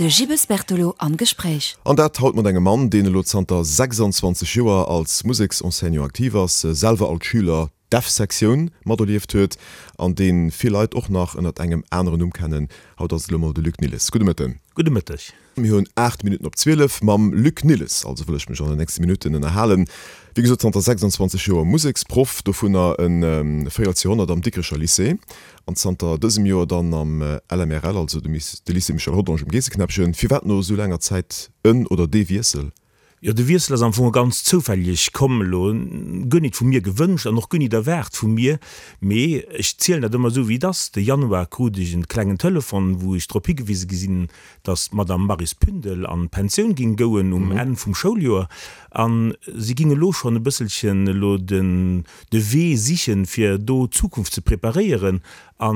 De Gilles Bertolo am Gespréich. An dat haut mat engem Mann, deen elo zanter 26 Joer als Museksenseignant aktiv ass, selwer als Schüler d'F-Sektioun materlieft huet an dee vill Leit och nach ënnert engem aneren Numm kennen. Haut ass et elo mol de Luc Nilles. Gudde Mëtten. Gudde Mëtteg. Mir hunn 8 Minutten op 12. Mam Luc Nilles also wëll ech mech an den nächste Minutten ënnerhalen. Wéi gesot zanter 26 Joer Museksproff, dovunner e Véierelsjoerhonnert am Dikrecher Lycée an zanter dësem Joer dann am LMRL, also de Lycée Michel Rodange um Geesseknäppchen. Firwat no esou laanger Zäit en oder dee Wiessel? Jo, de Wiessel ass am Fong ganz zoufälleg komm elo, guer nit vu mir gewënscht an och guer nit erwaart vu mir, mee ech zielen dat ëmmer esou wéi et ass. De Januar krut ech en klengen Telefon, wou ech drop higewise gi sinn, dass d'Madame Maryse Pündel an d'Pensioun ging gouen um Enn vum Schouljoer an si ging elo schonn e bësselchen elo den de Wee sichen, fir do d'Zukunft ze preparéieren. A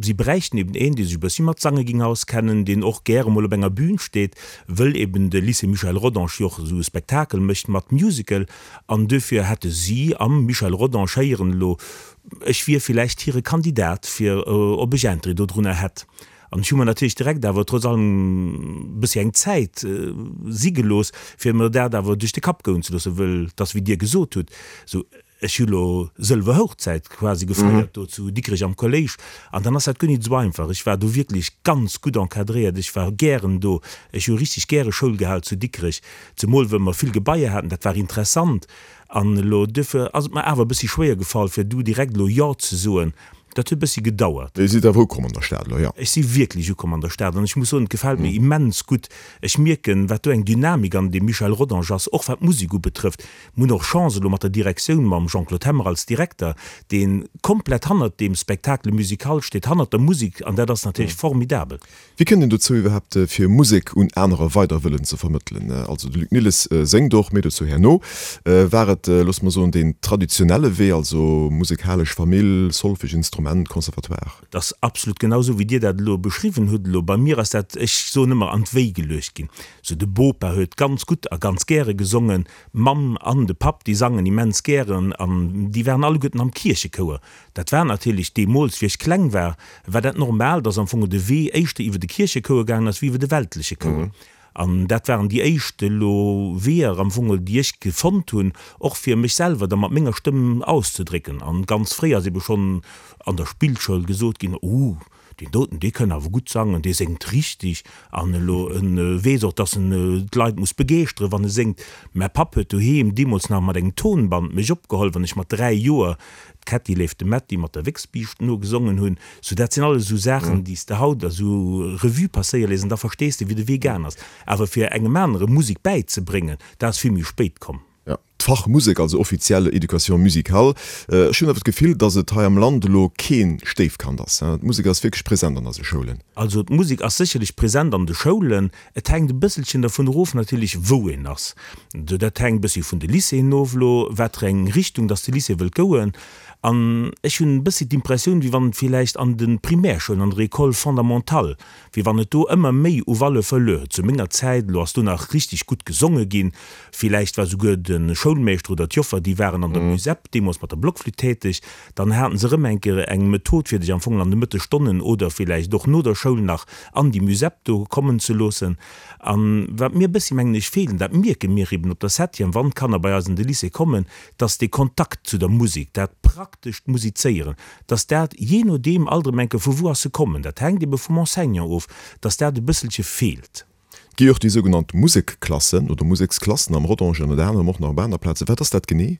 si bräichten eben een, dee sech e bëssi mat Sange ging auskennen, deen och gäre mol op enger Bühn steet, wëll eben de Lycée Michel Rodange jo och esou e Spektakel mécht mat Musical. An duerfir hätte si am Michel Rodange héieren elo, ech wier villäicht hire Kandidat, fir ob ech Interêt dodrunner hätt. An ech hu mer natierlech direkt awer trotz allem e bëssi eng Zäit si gelooss, fir mer dat awer duerch de Kapp goen ze loossen, wëll et ass, wéi Dir gesot hutt, esou, ech hu lo sëlwer Hochzäit quasi gefeiert do zu Dikrech am Kolléisch an dann ass dat guer nit esou einfach. Ech war do wierklech ganz gutt encadréiert, ech war gären do, ech hu richteg gäre Schoul gehal zu Dikrech, zemol wëll mer vill Gebaier haten, dat war interessant. An elo duerfir ass et mer awer e bëssi schwéier gefall, fir du direkt elo Jo ze soen. Dat huet e bëssi gedauert. Dir sidd awer ukomm an der Stad elo, jo? Ech si wierklech ukomm an der Stad an ech muss soen, et gefält mir immens gutt. Ech mierken, wat do eng Dynamik an deem Michel Rodange ass, och wat d'Musek ubetrëfft. Mir hunn och Chance elo mat der Direktioun, mam Jean-Claude Hemmer als Direkter, dee komplett hannert deem Spectacle musical steet, hannert der Musek an dat ass natierlech formidabel. Wéi kënnt een dozou iwwerhaapt fir Musek un anerer weider wëllen ze vermëttelen? Also de Luc Nilles séngt och, méi dozou herno. War et, loosse mer soen, deen traditionelle Wee, also musekalesch Famill, Solfege, Instrument, Conservatoire? Et ass absolut genau esou wéi Dir dat elo beschriwwen hutt. Elo bei mir ass dat, ech soen ëmmer, an d'Wéi geluecht ginn. Sou de Bopa huet ganz gutt a ganz gäre gesongen, d'Mamm an de Papp déi sangen immens gären an déi waren alleguerten am Kierchechouer. Dat war natierlech deemools, wéi ech kleng war, war dat normal, dass am Fong de Wee éischter iwwer de Kierchechouer gaangen ass wéi iwwer de weltleche Chouer. An dat waren déi éischt elo Weeër am Fong, déi ech gefonnt hunn, och fir mech selwer da mat menger Stëmm auszedrécken. An ganz fréi ass ebe schonn an der Spillschoul gesot ginn, Oh, Deen doten, dee kënn awer gutt sangen, dee séngt richteg an elo en weess och, dass en d'Leit muss begeeschteren, wann e séngt. Mäi Papp huet doheem deemools nach mat engem Tonband mech opgeholl, wann ech mat 3 Joer d'Kätti léift de Mätti mat der Wéchsbiischt nogesongen hunn. Sou, dat sinn alles esou Saachen, déi s de haut esou Revue passéiere léiss an da verstees de, wéi de Wee gaang ass. Awer fir engem anere Musek bäizebréngen, dat ass vill méi spéit komm. Jo, d'Fach Musek, also offiziell Education musicale. Ech hunn awer d'Gefill, datt et hei am Land elo kee Stéifkand ass. D'Musek ass wierklech present an eise Schoulen. Also d'Musek ass sécherlech present an de Schoulen. Et hänkt e bësselchen dervun erof natierlech, wou een ass. Dat hänkt e bëssi vun de Lycéeën of elo, wat fir eng Richtung datt de Lycée wëllt goen. An ech hunn e bëssi d'Impressioun, wéi wann et villäicht an de Primärschoulen, an der École fondamentale, wéi wann et do ëmmer méi u Valeur verluer huet. Zu menger Zäit elo ass do nach richteg gutt gesonge ginn. Villäicht war souguer de Schoulmeeschter oder d'Joffer, déi waren an der Musep deemools mat der Blockflütt täteg. Dann haten se erëm eng Kéier eng Method, fir dech am Fong an de Mëttesstonnen oder villäicht och no der Schoul nach an déi Musep do kommen ze loossen. An wat mir e bëssi, mengen ech, feelt, an dat mierke mir eben op der Septième, wann d'Kanner bei eis an de Lycée kommen, dass dee Kontakt zu der Musek, dat praktescht Musizéieren, dass dat, jee nodeem alt erëm eng Kéier, vu wou ass se kommen, dat hänkt ebe vum Enseignant of, dass dat e bësselche feelt. Et gi jo och déi sougenannt Musekklassen oder Museksklassen am Rodange an ënner anerem och nach op aner Plazen. Wat ass dat genee?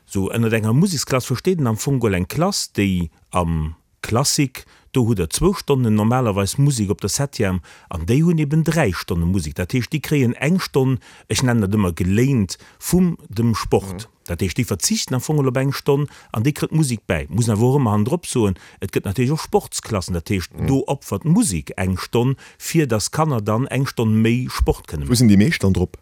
Sou, ënnert enger Museksklass versteet een am Fong geholl eng Klass, déi am Classique, do hutt der zwou Stonnen normalerweis Musek op der Septième an déi hunn eben 3 Stonne Musek. Dat heescht, déi kréien eng Stonn, ech nennen dat ëmmer geléint, vum dem Sport. Dat heescht, déi verzichten am Fong op eng Stonn an déi kritt d'Musek bäi. Muss een awer och ëmmer hannendrop soen, et gëtt natierlech och Sportsklassen, dat heescht, do opfert d'Musek eng Stonn, fir datt d'Kanner dann eng Stonn méi Sport kënne Wou sinn maachen. déi meescht dann drop?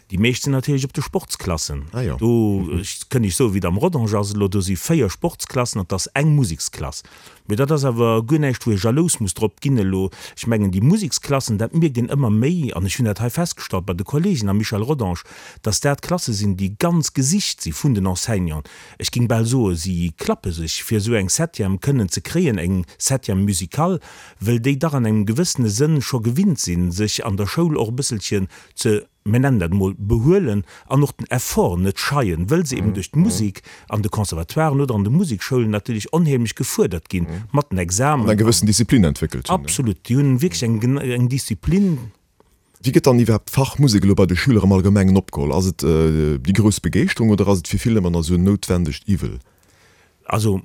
Déi meescht sinn natierlech op de Sportsklassen. Ah jo. Do kënn ech soen, wéi et am Rodange ass elo, do si 4 Sportsklassen an 't ass eng Museksklass. Mee dat ass awer guer näischt, wou ee jalous muss drop ginn elo. Ech mengen, déi Museksklassen, dat mierkt een ëmmer méi, an ech hunn dat hei festgestallt bei de Kollegen am Michel Rodange, dass dat Klasse sinn, déi ganz gesicht si vun den Enseignanten. Ech géing bal soen, si klappe sech, fir esou eng Septième kënnen ze kréien, eng Septième musicale, wëll déi dach an engem gewëssene Sënn scho gewinnt sinn, sech an der Schoul och e bësselchen ze, mir nennen dat emol, behuelen an och den Effort net scheien, wëll se eben duerch d'Musek an de Conservatoiren oder an de Musekschoulen natierlech onheemlech gefuerdert ginn mat den Examen. An eng gewëssen Disziplin entwéckelt hunn. Absolut, déi hunn wierklech eng, eng Disziplin. Wéi gëtt dann iwwerhaapt d'Fach Musek elo bei de Schüler am Allgemengen opgeholl? Ass et déi grouss Begeeschterung oder ass et fir vill ëmmer nach esou en noutwendegt Iwwel? Also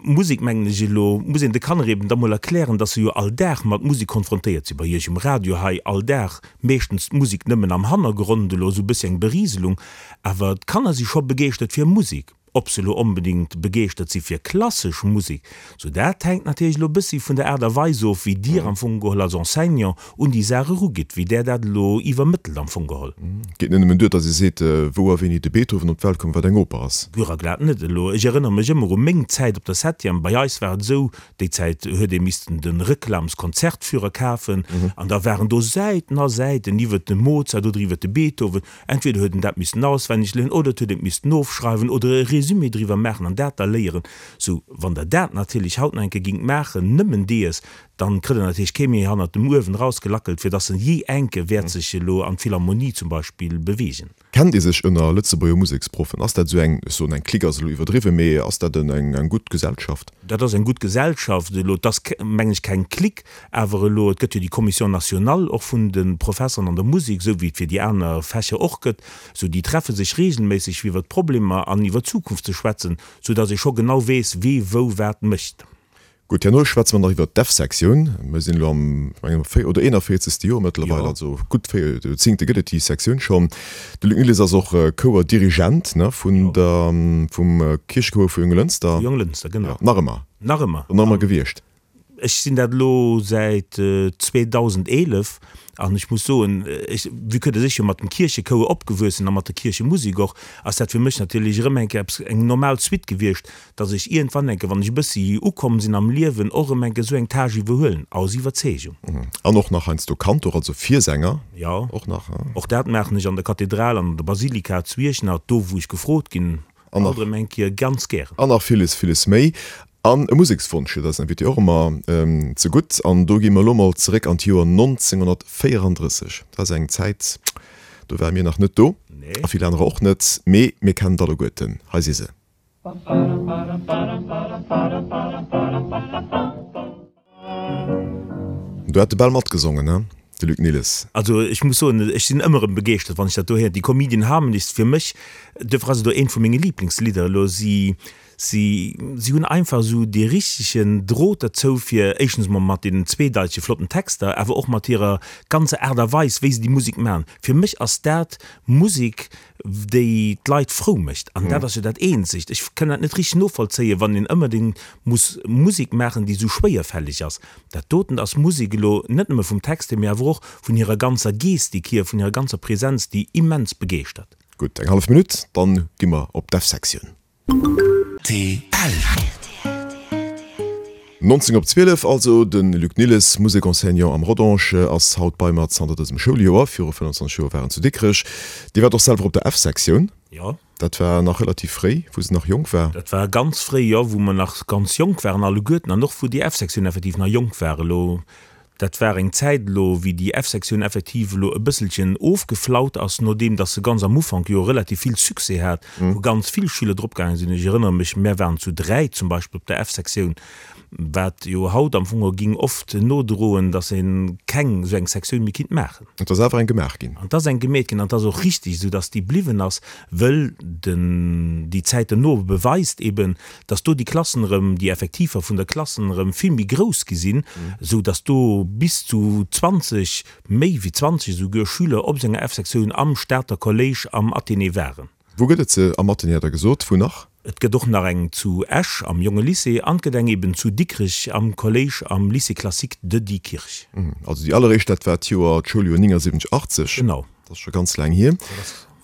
Musek, mengen ech elo, muss een de Kanner eben da mol erklären, dass se jo all Dag mat Musek konfrontéiert sinn. Bei Iech um Radio hei all Dag meeschtens d'Musek nëmmen am Hannergrond, elo esou e bëssi eng Beriselung, awer d'Kanner si scho begeeschtert fir Musek. Ob se elo onbedéngt begeeschtert si fir klassesch Musek, sou dat hänkt natierlech elo e bëssi vun der Aart a Weis of, wéi Dir am Fong geholl als Enseignant un déi Saach erugitt, wéi Der dat elo iwwermëttelt am Fong geholl. Et geet net nëmmen duer, datt ee seet, wou a wéini de Beethoven op d'Welt koum, wat eng Oper ass. Guer a glat net. Elo, ech erënnere mech ëmmer u meng Zäit op der Septième. Bei eis war et esou, déi Zäit huet ee missten de Reklamskonzertführer kafen an da waren do Säiten a Säiten iwwert de Mozart oder iwwert de Beethoven. Entweder huet en dat missten auswenneg léieren oder et huet een et missten ofschreiwen oder e Résumé driwwer maachen an dat da léieren. Sou, wann Der dat natierlech haut nach eng Kéier gingt maachen, nëmmen dees, dann kritt Der natierlech kee méi hannert dem Uewen erausgelackelt, fir dass en jee enke wäert sech elo an d'Philharmonie zum Beispill beweegen. Kennt ee sech ënner Lëtzebuerger Museksproffen? Ass dat esou eng, ech soen eng Clique ass elo iwwerdriwwen, mee ass dat eng gutt Gesellschaft? Dat ass eng gutt Gesellschaft. Elo, et ass, mengen ech, keng Clique, awer elo, et gëtt jo déi Commission nationale och vun de Professeren an der Musek, esou wéi et fir déi aner Fächer och gëtt. Esou, déi treffe sech regelméisseg fir iwwert d'Problemer an iwwer d'Zukunft ze schwätzen, sou dass ee scho genau weess, wee wou wat mécht. Gutt, herno schwätze mer nach iwwert d'F-Sektioun. Mir sinn elo am, ech mengen, am véier oder 41. Joer mëttlerweil, also gutt véier Joerzéngte gëtt et déi Sektioun schonn. De Luc Nilles ass och Chouerdirigent, ne, vun der, vum Kierchechouer vu Jonglënster. Vu Jonglënster, genau. Jo, nach ëmmer. Nach ëmmer. Nach ëmmer gewiescht. Ech sinn dat elo säit 2011 an ech muss soen, ech, vue que dass ech jo mat dem Kierchechouer opgewuess sinn a mat der Kierchemusek och, ass dat fir mech natierlech erëm eng Kéier eppes, eng normal Suite gewiescht, dass ech iergendwann enke, wann ech e bëssi ukomm sinn am Liewen, och erëm enke esou eng Tâche iwwerhuelen, aus Iwwerzeegung. An och nach heiansdo Kantor, also Virsänger Jo, och nach. Och dat maachen ech an der Kathedral an an der Basilika zu Iechternach, do wou ech gefrot ginn, alt erëm eng Kéier ganz gären. An nach villes, villes méi. An e Musekswonsch huet eisen Invité och ëmmer zegutt. An do gi mer elo mol zeréck an d'Joer 1934. Dat ass eng Zäit, do ware mir nach net do, a vill anerer och net, mee mir kennen d'alleguerten. Hei si se. Do hat de bal matgesongen, he, de Luc Nilles. Also ech muss soen, ech sinn ëmmer erëm begeeschtert, wann ech dat do héieren. Déi Comedian Harmonists, fir mech, duerfir ass et och eent vu menge Lieblingslidder elo. Si, si, si hunn einfach esou dee richtegen Drot derzou, fir éischtens emol mat deenen zweedeitege flotten Texter, awer och mat hirer ganzer Aart a Weis, wéi se déi Musek maachen. Fir mech ass dat Musek, déi d'Leit frou mécht. An dat ass jo dat eenzegt. Ech kënn dat net richteg novollzéien, wann een ëmmerdéngt muss Musek maachen, déi esou schwéierfälleg ass. Dat doten ass Musek elo net nëmme vum Text hier, mee awer och vun hirer ganzer Gestik hier, vun hirer ganzer Präsenz, déi immens begeeschtert. Gutt, eng hallef Minutt, dann gi mer op d'F-Sektioun. Rtl. 19 op 12 also, de Luc Nilles, Musek-Enseignant am Rodange, ass haut bei mer zanter dësem Schouljoer. Viru 25 Joer war en zu Dikrech. Dir waart och selwer op der F-Sektioun. Jo. Dat war nach relativ fréi, wou se nach jonk war. Dat war ganz fréi, jo, wou mer nach ganz jonk waren alleguerten an och wou déi F-Sektioun effektiv nach jonk war. Elo Dat war eng Zäit elo, wéi déi F-Sektioun effektiv elo e bësselchen ofgeflaut ass, nodeem datt se ganz am Ufank jo relativ vill Succès hat, wou ganz vill Schüler drop gaange sinn. Ech erënnere mech, mär waren zu 3 zum Beispill op der F-Sektioun, wat jo haut am Fong ging oft nodroen, datt ee keng esou eng Sektioun méi kinnt maachen. Et ass awer eng gemaach ginn. An et ass eng gemeet ginn an et ass och richtig esou, datt déi bliwwen ass, wëll den, déi Zäit dono beweist eben, dass do déi Klassen erëm, déi Effektiver vun der Klassen erëm vill méi grouss gi sinn, esou dass do bis zu 20, méi wéi 20 esouguer Schüler op senger F-Sektioun am Stater Kolléisch am Athénée waren. Wou gëtt et se? Am Athénée hat Der gesot. Wou nach? Et gëtt och nach eng zu Esch am Jonge Lycée an et gëtt eng eben zu Dikrech am Kolléisch am Lycée classique de Diekirch. Also déi alleréischt, dat war d'Joer, d'Schouljoer 79, 80. Genau. Dat ass scho ganz laang hier.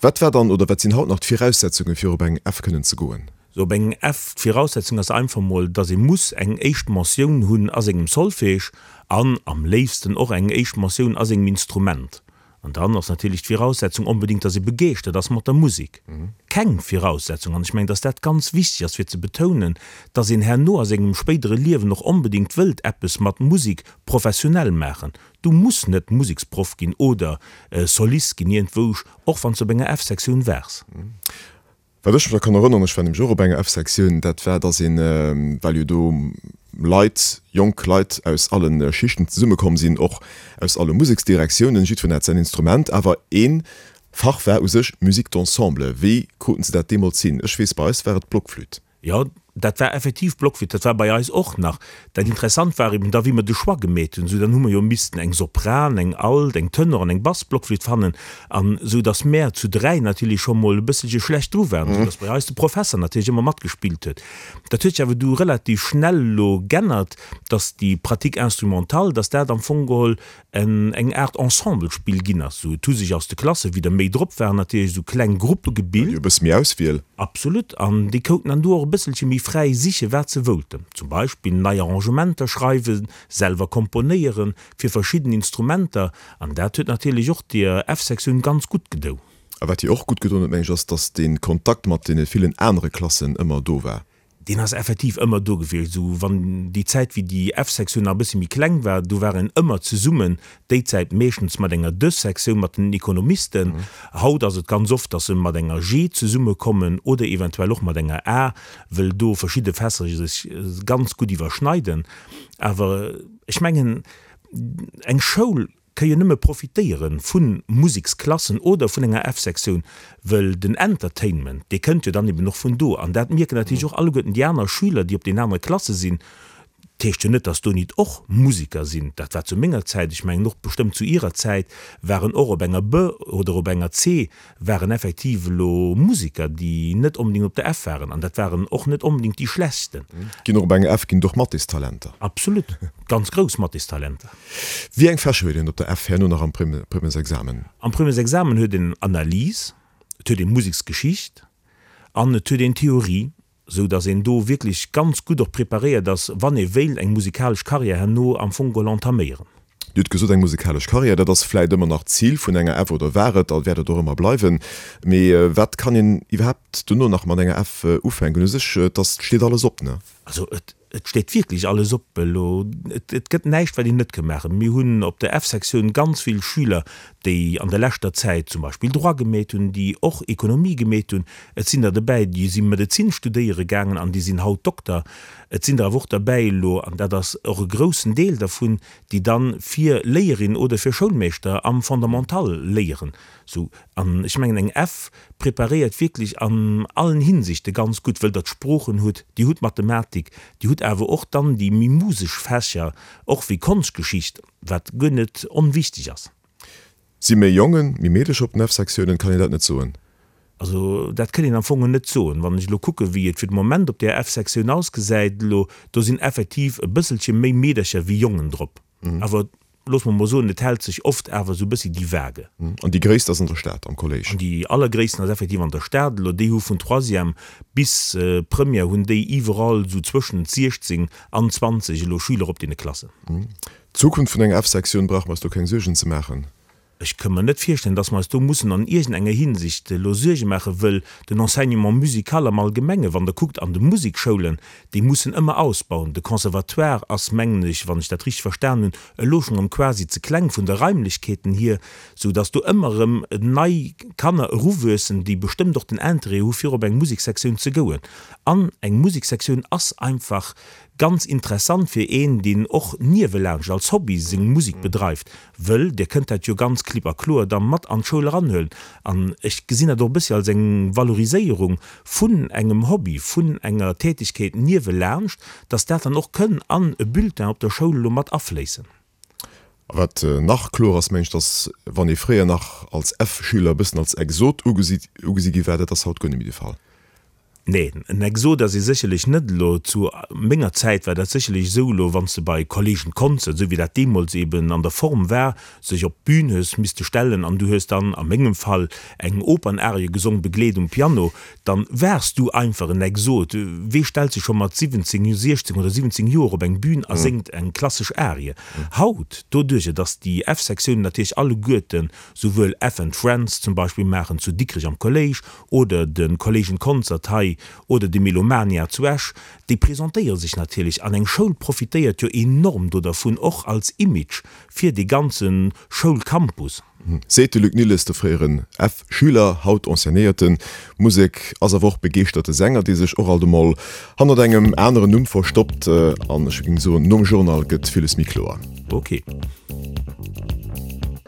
Wat war dann oder wat sinn haut nach d'Viraussetzungen, fir op eng F kënnen ze goen? Sou op eng F, d'Viraussetzung ass einfach mol, dass ee muss eng éischt Mentioun hunn a sengem Solfège an am léifsten och eng éischt Mentioun a sengem Instrument. An dann ass natierlech d'Viraussetzung onbedéngt, dass ee begeeschtert ass mat der Musek. Keng Viraussetzung, an ech mengen, dass dat ganz wichteg ass fir ze betounen, dass een herno a sengem spéidere Liewen och onbedéngt wëllt eppes mat Musek professionell maachen. Du muss net Museksproff ginn oder Solist ginn iergendwousch, och wann s de op enger F-Sektioun waars. Wat ech mech nach kann erënneren, ech war nämlech och op enger F-Sektioun, dat war, dass een, well jo do Leit, jonk Leit aus alle Schichten zesummekomm sinn, och aus alle Museksdirektiounen, jiddwereen hat säin Instrument, awer ee Fach war u sech Musique d'ensemble. Wéi kruten se dat deemools hin? Ech weess, bei eis war et d'Blockflütt. Jo, dat war effektiv Blockflütt, dat war bei eis och nach. Dat Interessant war eben da, wéi mer de Choix gemeet hunn, esou dann hu mer jo missten eng Sopran, eng Alt, eng Tenor an eng Bassblockflütt fannen, an esou datt mär zu 3 natierlech scho mol e bësselche schlecht dru waren, esou datt bei eis de Professer natierlech ëmmer matgespillt huet. Dat huet sech awer du relativ schnell elo g'ännert, datt déi Pratique instrumentale, datt dat am Fong geholl en eng Aart Ensemblespill ginn ass. Sou, et hu sech aus de Klasse, wéi der méi drop waren, natierlech esou kleng Gruppe gebilt. E bësse méi Auswiel. Absolut. An déi kouten dann do och e bësselche méi fräi sichen, wat se woulten. Zum Beispill nei Arrangementer schreiwen, selwer komponéieren fir verschidden Instrumenter. An dat huet natierlech och deer F-Sektioun ganz gutt gedou. A wat hir och gutt gedoen huet, meng ech, ass, dass dee Kontakt mat deene villen anere Klassen ëmmer do war. Deen ass effektiv ëmmer do gewiescht. Esou wann déi Zäit wéi déi F-Sektioun nach e bëssi méi kleng war, do war een ëmmer zesummen, déi Zäit meeschtens mat enger D-Sektioun, mat den Ekonomisten. Haut ass et ganz oft, datt se mat enger G zesummekommen oder eventuell och mat enger A, wëll do verschidde Fächer sech ganz gutt iwwerschneiden. Awer ech mengen, eng Schoul ka jo nëmme profitéiere vu Museksklassen oder vun enger F-Sektioun, wëll den Entertainment, dee kënnt jo dann eben och vun do. An dat mierken natierlech och alleguerten déi aner Schüler, déi op den anere Klasse sinn. Dat heescht jo net, dass do nit och Museker sinn. Dat war zu menger Zäit, ech mengen och bestëmmt zu Irer Zäit, waren och op enger B oder op enger C waren effektiv elo Museker, déi net onbedéngt op der F waren. An dat waren och net onbedéngt déi schlechtsten. Ginn och op enger F ginn et och Mathéstalenter. Absolut, ganz grouss Mathéstalenter. Wéi eng Fächer huet een op der F herno nach am Premièresexamen? Am Premièresexamen huet een Analyse, et huet ee Museksgeschicht an et huet een Theorie, sou datt een do wierklech ganz gutt och preparéiert ass, wann ee wéilt eng musikalesch Karriär herno am Fong geholl entaméieren. Dir hutt gesot, eng musikalesch Karriär, dat ass vläit ëmmer nach d'Zil vun enger F oder war et a wäert et och ëmmer bleiwen. Mee wat kann een iwwerhaapt dono nach mat enger F ufänken? U sech, et ass, steet alles op, ne? Also et Et steet wierklech alles op elo. Et gëtt näischt, wat een net ka maachen. Mir hunn op der F-Sektioun ganz vill Schüler, déi an der leschter Zäit zum Beispill Droit gemeet hunn, déi och Ekonomie gemeet hunn. Et sinn der dobäi, déi si Medezin studéiere gaangen an déi sinn haut Dokter. Et sinn der awer och derbäi elo, an dat ass och e groussen Deel dervun, déi dann fir Léierin oder fir Schoulmeeschter am Fondamental léieren. Sou, an ech mengen, eng F preparéiert wierklech an allen Hinsichte ganz gutt, wëll der d'Sproochen hutt, Dir hutt Mathematik, Dir hutt awer och dann déi méi musesch Fächer, och wéi Konschtgeschicht, wat guer net onwichtig ass. Si méi Jongen, méi Meedecher op den F-Sektiounen? Kann een dat net soen? Also dat kënn een am Fong net soen. Wann ech elo kucken, wéi et fir de Moment op där F-Sektioun ausgesäit elo, do sinn effektiv e bësselche méi Meedercher wéi Jongen drop. Awer loosse mer mol soen, et hält sech oft awer esou e bëssi déi Vague. An déi gréisst ass an der Stad, am Kolléisch? An déi allergréissten ass effektiv an der Stad. Elo déi hu vun Troisième bis Première hunn déi iwwerall esou zwëschent 16 an 20 elo Schüler op deene Klassen. D'Zukunft vun enger F-Sektioun, brauche mer eis do keng Suergen ze maachen? Ech ka mer net virstellen, dass mer eis do mussen an iergendenger Hinsicht elo Suerge maachen, wëll den Enseignement musical am Allgemenge, wann Der kuckt an de Musekschoulen, déi mussen ëmmer ausbauen. De Conservatoire ass, mengen ech, wann ech dat richteg verstan hunn, elo schonn erëm quasi ze kleng vun de Raimlechkeeten hier, sou dass do ëmmer erëm nei Kanner eruwuessen, déi bestëmmt och den Interêt hu fir op eng Musekssektioun ze gouen. An eng Musekssektioun ass einfach ganz interessant fir een, deen och niewelaanscht als Hobby seng Musek bedreift, Wëll Dir kënnt dat jo ganz klipp a kloer da mat an d'Schoul eranhuelen. An ech gesinn dat och e bëssi als eng Valoriséierung vun engem Hobby, vun enger Tätigkeet niewelaanscht, dass dat dann och kënn an e Bulletin op der Schoul elo mat afléissen. A wat nach kloer ass, mengen ech, dass wann ee fréier nach als F-Schüler e bëssen als Exot ugesi gi war, dat ass haut guer net méi de Fall. Nee, en Exot ass ee sécherlech net elo. Zu menger Zäit war dat sécherlech esou elo, wann s de bei Kollegen Concert, esou wéi dat deemools eben an der Form war, sech op d'Bün hues misste stellen an du hues dann, a mengem Fall, eng Opernarie gesong, begleet um Piano, dann waars du einfach en Exot. Wee stellt sech scho mat 17, 16 oder 17 Joer op eng Bün a séngt eng klassesch Arie? Haut, doduercher dass déi F-Sektiounen natierlech alleguerten souwuel F and Friends zum Beispill maachen zu Dikrech am Kolléisch oder de Kolléisch Concert hei oder de Melomania zu Esch, déi presentéiere sech natierlech an eng Schoul profitéiert jo enorm do dervun, och als Image fir dee ganze Schoulcampus. Seet de Luc Nilles, de fréieren F-Schüler, haut Enseignéierte Musek, ass awer och begeeschterte Sänger, dee sech och alt emol hannert engem aneren Numm verstoppt. An ech géing soen, nom Journal gëtt villes méi kloer. Ok.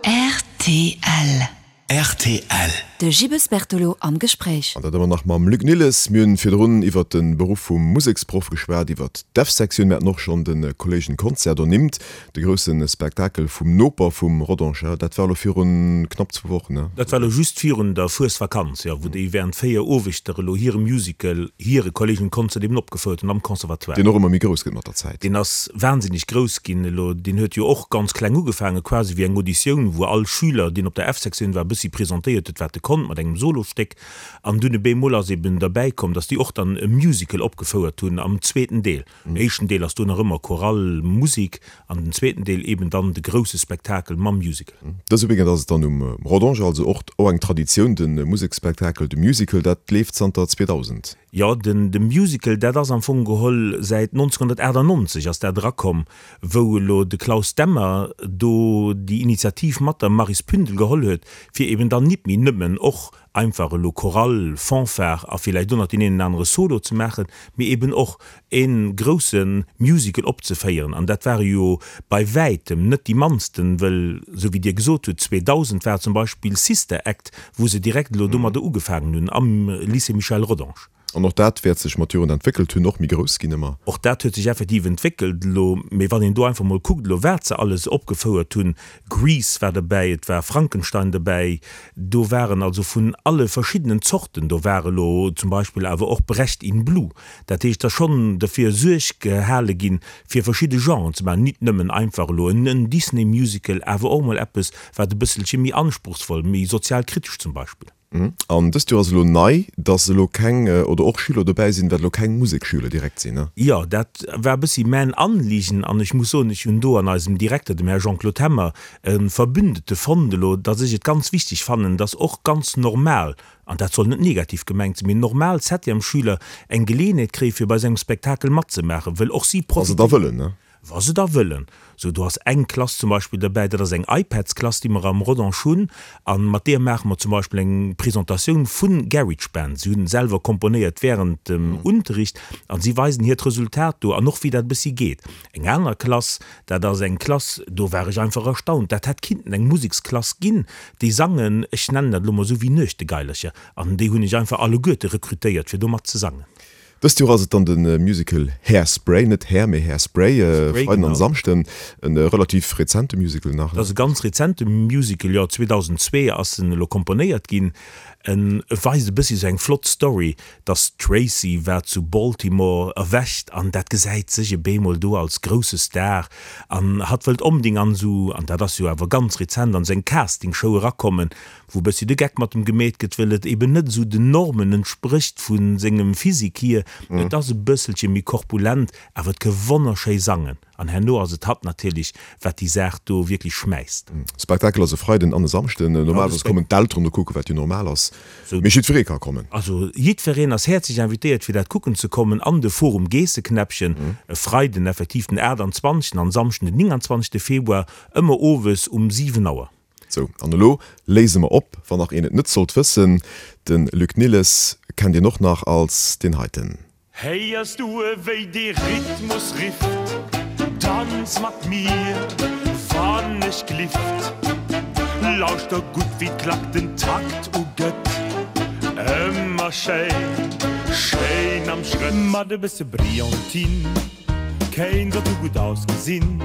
Rtl. Rtl. De Gibbes Bertolo am Gespréich. An dat ëmmer nach mam Luc Nilles. Mir hunn virdrun iwwert de Beruff vum Museksproff geschwat, iwwert d'F-Sektioun. Mir haten och schonn de Kolleegenconcert ernimmt, de grousse Spektakel vum Noper vum Rodange. Dat war elo virun knapp zwou Wochen, ne? Dat war elo just virun der Fuesvakanz, jo, wou déi während 4 Owegter elo hire Musical, hire Kolleegenconcert eben opgefouert hunn am Conservatoire. Deen och ëmmer méi grouss gëtt mat der Zäit. Deen ass wahnsinneg grouss ginn elo. Deen huet jo och ganz kleng ugefaangen, quasi wéi eng Auditioun, wou all Schüler, deen op der F-Sektioun war, e bëssi presentéiert huet, wat e konnt, mat engem Solostéck. An dunn e bemol ass eben derbäi komm, dass déi och dann e Musical opgefouert hunn am zweeten Deel. Den éischten Deel ass do nach ëmmer Chorale, Musik, an den zweeten Deel eben dann de grousse Spektakel mam Musical. Dëse Weekend ass et dann um Rodange, also och eng Traditioun, de Museksspektakel, de Musical, dat leeft zanter 2000. Jo, den de Musical, dat ass am Fong geholl säit 1998 ass dat erakomm, wou elo de Klaus Demmer do déi Initiativ mat der Maris Pündel geholl huet, fir eben dann nit méi nëmmen och einfach elo Chorale, Fanfare a villäicht och nach deen een anere Solo ze maachen, mee eben och e grousse Musical opzeféieren. An dat ware jo bei wäitem net déi mannsten, wëll, esou wéi Dir gesot hutt, 2000 war zum Beispill Sister Act, wou se direkt elo domadder ugefaangen hunn am Lycée Michel Rodange. An och dat wäert sech mat Joren entwéckelt hunn, och méi grouss ginn ëmmer. Och dat huet sech effektiv entwéckelt elo. Mee wann een do einfach mol kuckt elo, wat se alles opgefouert hunn, Grease war derbäi, et war Frankenstein derbäi, do waren also vun alle verschiddenen Zorten, do war elo zum Beispill awer och Brecht in Blue. Dat heescht, et ass schonn derfir Suerg gehale ginn, fir verschidde Genren ze maachen, nit nëmmen einfach elo en Disney-Musical, awer och mol eppes, wat e bësselche méi anspruchsvoll, méi sozialkritesch zum Beispill. An dëst Joer ass elo nei, dass elo keng oder och Schüler dobäi sinn, wat elo keng Musekschüler direkt sinn, ne? Jo, dat war e bëssi mäin Anliegen an ech muss soen, ech hunn do an eisem Direkter, dem Här Jean-Claude Hemmer, e Verbündete fonnt elo, dass ech et ganz wichteg fannen, dass och ganz normal, an dat soll net negativ gemengt sinn, mee normal Septièmesschüler eng Geleeënheet kréie fir bei esou engem Spektakel matzemaachen, wëll och si Wa se da wëllen, ne? Wa se da wëllen. Sou, do ass eng Klass zum Beispill derbäi, dat ass eng iPads-Klass, déi mer am Rodange hunn, a mat deeër maache mer zum Beispill eng Presentatioun vu GarageBand. Si hunn selwer komponéiert wärend dem Unterricht a si weisen hiert Resultat do an och wéi dat e bëssi geet. Eng aner Klass, dat ass eng Klass, do war ech einfach erstaunt, dat hätt kinnten eng Museksklass ginn, déi sangen, ech nennen dat elo mol esou, wéi Nuechtegaillercher an déi hunn ech einfach alleguerte rekrutéiert, fir do mat ze sangen. Dëst Joer ass et dann de Musical Hairspray, net Hair, mee Hairspray, e Freiden an e Samschden. E relativ rezente Musical nach, ne? Dat ass e ganz rezente Musical, jo, 2002 ass en elo komponéiert ginn. En weist e bëssi esou eng flott Story, dass d'Tracy wat zu Baltimore erwächt an dat gesäit sech e bemol do als grousse Star an hatt wëllt onbedéngt an esou, an dat ass jo awer ganz rezent, an esou eng Castingshow erakommen, wou e bëssi de Geck mat em gemeet gëtt, wëll et eben net esou den Normen entsprécht vu sengem Physique hier. Et ass e bësselche méi korpulent, awer et ke wonnerschéi sangen. An herno ass et hatt natierlech, wat déi Saach do wierklech schmäisst. Spektakel ass e Freiden an e Samschden. Normalerweis kommen d'Elteren do kucken, wat jo normal ass, mee jiddweree ka kommen. Also jiddwereen ass häerzlech invitéiert, fir dat kucken ze kommen an de Forum Geesseknäppchen, e Freiden effektiv den 28. an Samschden den 29. Februar, ëmmer owes um 7 Auer. Sou, an elo léise mer op, wann nach een et net sollt wëssen, de Luc Nilles kennt een och nach als deen heiten. Héiers du ewéi dee Rhythmus rifft, Tanz mat mir, wann ech glift. Lauschter gutt wéi d'Klack den Takt ugëtt, ëmmer schéin, schéin am Schrëtt. Mat e bësse Brillantine kéint et gutt ausgesinn.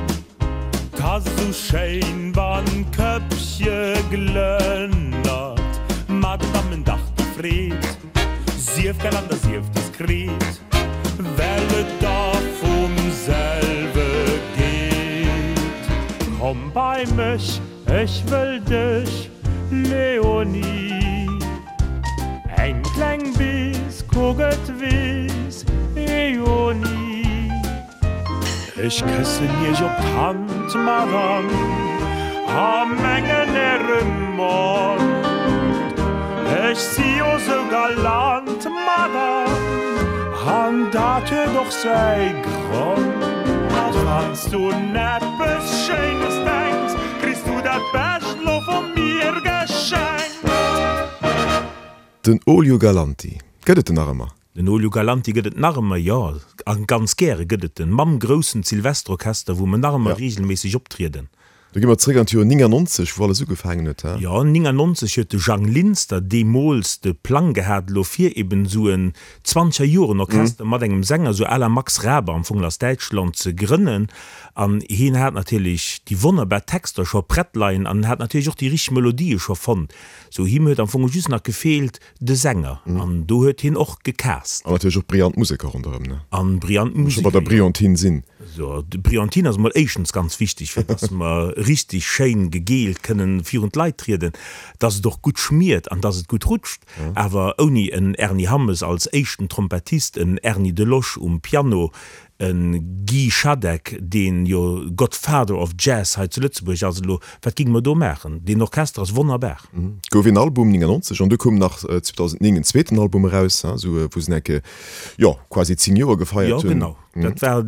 'T ass esou schéin, wann d'Këppche glënnert, ma den Dammen dach déi Freed. Sief galant a sief diskret, well et da vum selwe geet. Komm bei mech, ech wëll dech, Léonie. Eng kleng Bis, kuck et weess jo ni. Ech këssen iech op d'Hand, Madame, a mengen äre Mond. Ech si jo sou galant, Madame, an dat huet och säi Grond. Wann s du un eppes Schéines denks, kriss du dat Bescht lo vu mir geschenkt. Den Olio Galanti, gëtt et en nach ëmmer? Den Olio Galanti gëtt et nach ëmmer, jo, a ganz gäre gëtt et en, mam groussen Silvesterorchester, wou mer nach ëmmer reegelméisseg optrieden. Do gi mer zréck an d'Joer 99, wou alles ugefaangen huet, he? Jo, 99 huet de Jang Linster deemools de Plang gehat, elo fir eben esou en Zwanzeger-Joren-Orchester mat engem Sänger, esou à la Max Raabe am Fong aus Däitschland, ze grënnen. An hien hat natierlech déi wonnerbar Texter scho prett leien an en hat natierlech och déi richteg Melodië scho fonnt. Sou, him huet am Fong just nach gefeelt, De Sänger, an do huet hien och gecast. An natierlech och brillant Museker ronderëm, ne? An brillant Museker, jo. Scho bei der Brillantine sinn. So, d'Brillantine ass emol éischtens ganz wichteg, fir dass mer richtig schéin gegeelt kënnen virun d'Leit trieden, dass et och gutt schmiert an dass et gutt rutscht. Awer ouni en Ernie Hammes als éischten Trompettist, en Erny Delosch um Piano, E Guy Schadeck, deen jo Godfather of Jazz hei zu Lëtzebuerg ass elo, wat géinge mer do maachen? Deen Orchester ass wonnerbar. Et gouf een Album 99 an du koum nach 2009 en zweeten Album eraus, esou wou se enke, jo, quasi 10 Joer gefeiert hunn. Jo, genau. Dat war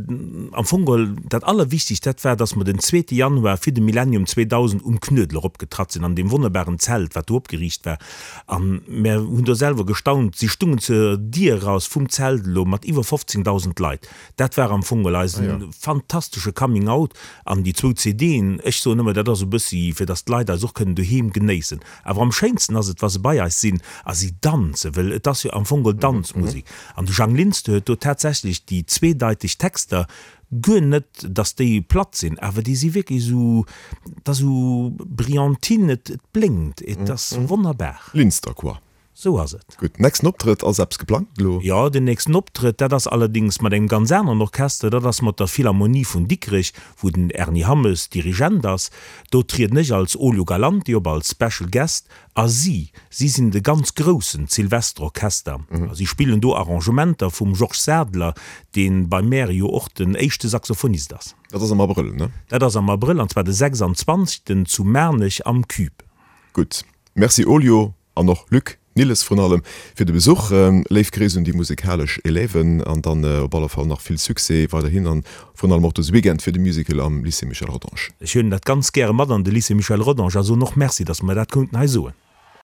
am Fong geholl dat Allerwichtegst, dat war, datt mer den zweete Januar fir de Millennium 2000 um Knuedler opgetratt sinn, an deem wonnerbaren Zelt, wat do opgeriicht war. A mär hunn do selwer gestaunt, si stungen zur Dier eraus vum Zelt elo mat iwwer 15.000 Leit. Dat war am Fong geholl eisen fantastesche Coming Out. An déi zwou CDen, ech soen ëmmer, dat ass e bëssi fir datt d'Leit eis och kënnen doheem genéissen. Awer am schéinsten ass et, wa se bei eis sinn a si danzen, well et ass jo am Fong geholl Danzmusek. An de Jang Linster huet do tatsächlech déi zweedeiteg Texter Guer net, dass déi platt sinn, awer déi si wierklech esou, et ass esou Brillantine, et blénkt, et ass wonnerbar. Linster quoi. Sou ass et. Gutt, nächsten Optrëtt, ass eppes geplangt elo? Jo, den nächsten Optrëtt, dat ass allerdéngs mat engem ganz aneren Orchester, dat ass mat der Philharmonie vun Dikrech, wou den Erny Hammes Dirigent ass. Do trieden ech als Olio Galanti op, als Special Guest, A si, si sinn de ganz groussen Silvesterorchester. A si spillen do Arrangementer vum Georges Sadler, dee bei mär jo och den éischte Saxophonist ass. Dat ass am Abrëll, ne? Dat ass am Abrëll, an zwar de 26. zu Maarnech am Cube. Gutt. Merci Olio an och Luc Nilles vrun allem fir de Besuch. Léif Gréiss un déi musekalesch Élèven an dann op alle Fall nach vill Succès weiderhin an Vrun allem och dëse Weekend fir de Musical am Lycée Michel Rodange. Ech huelen dat ganz gäre mat an de Lycée Michel Rodange a soen och Merci, dass mer dat konnten hei soen.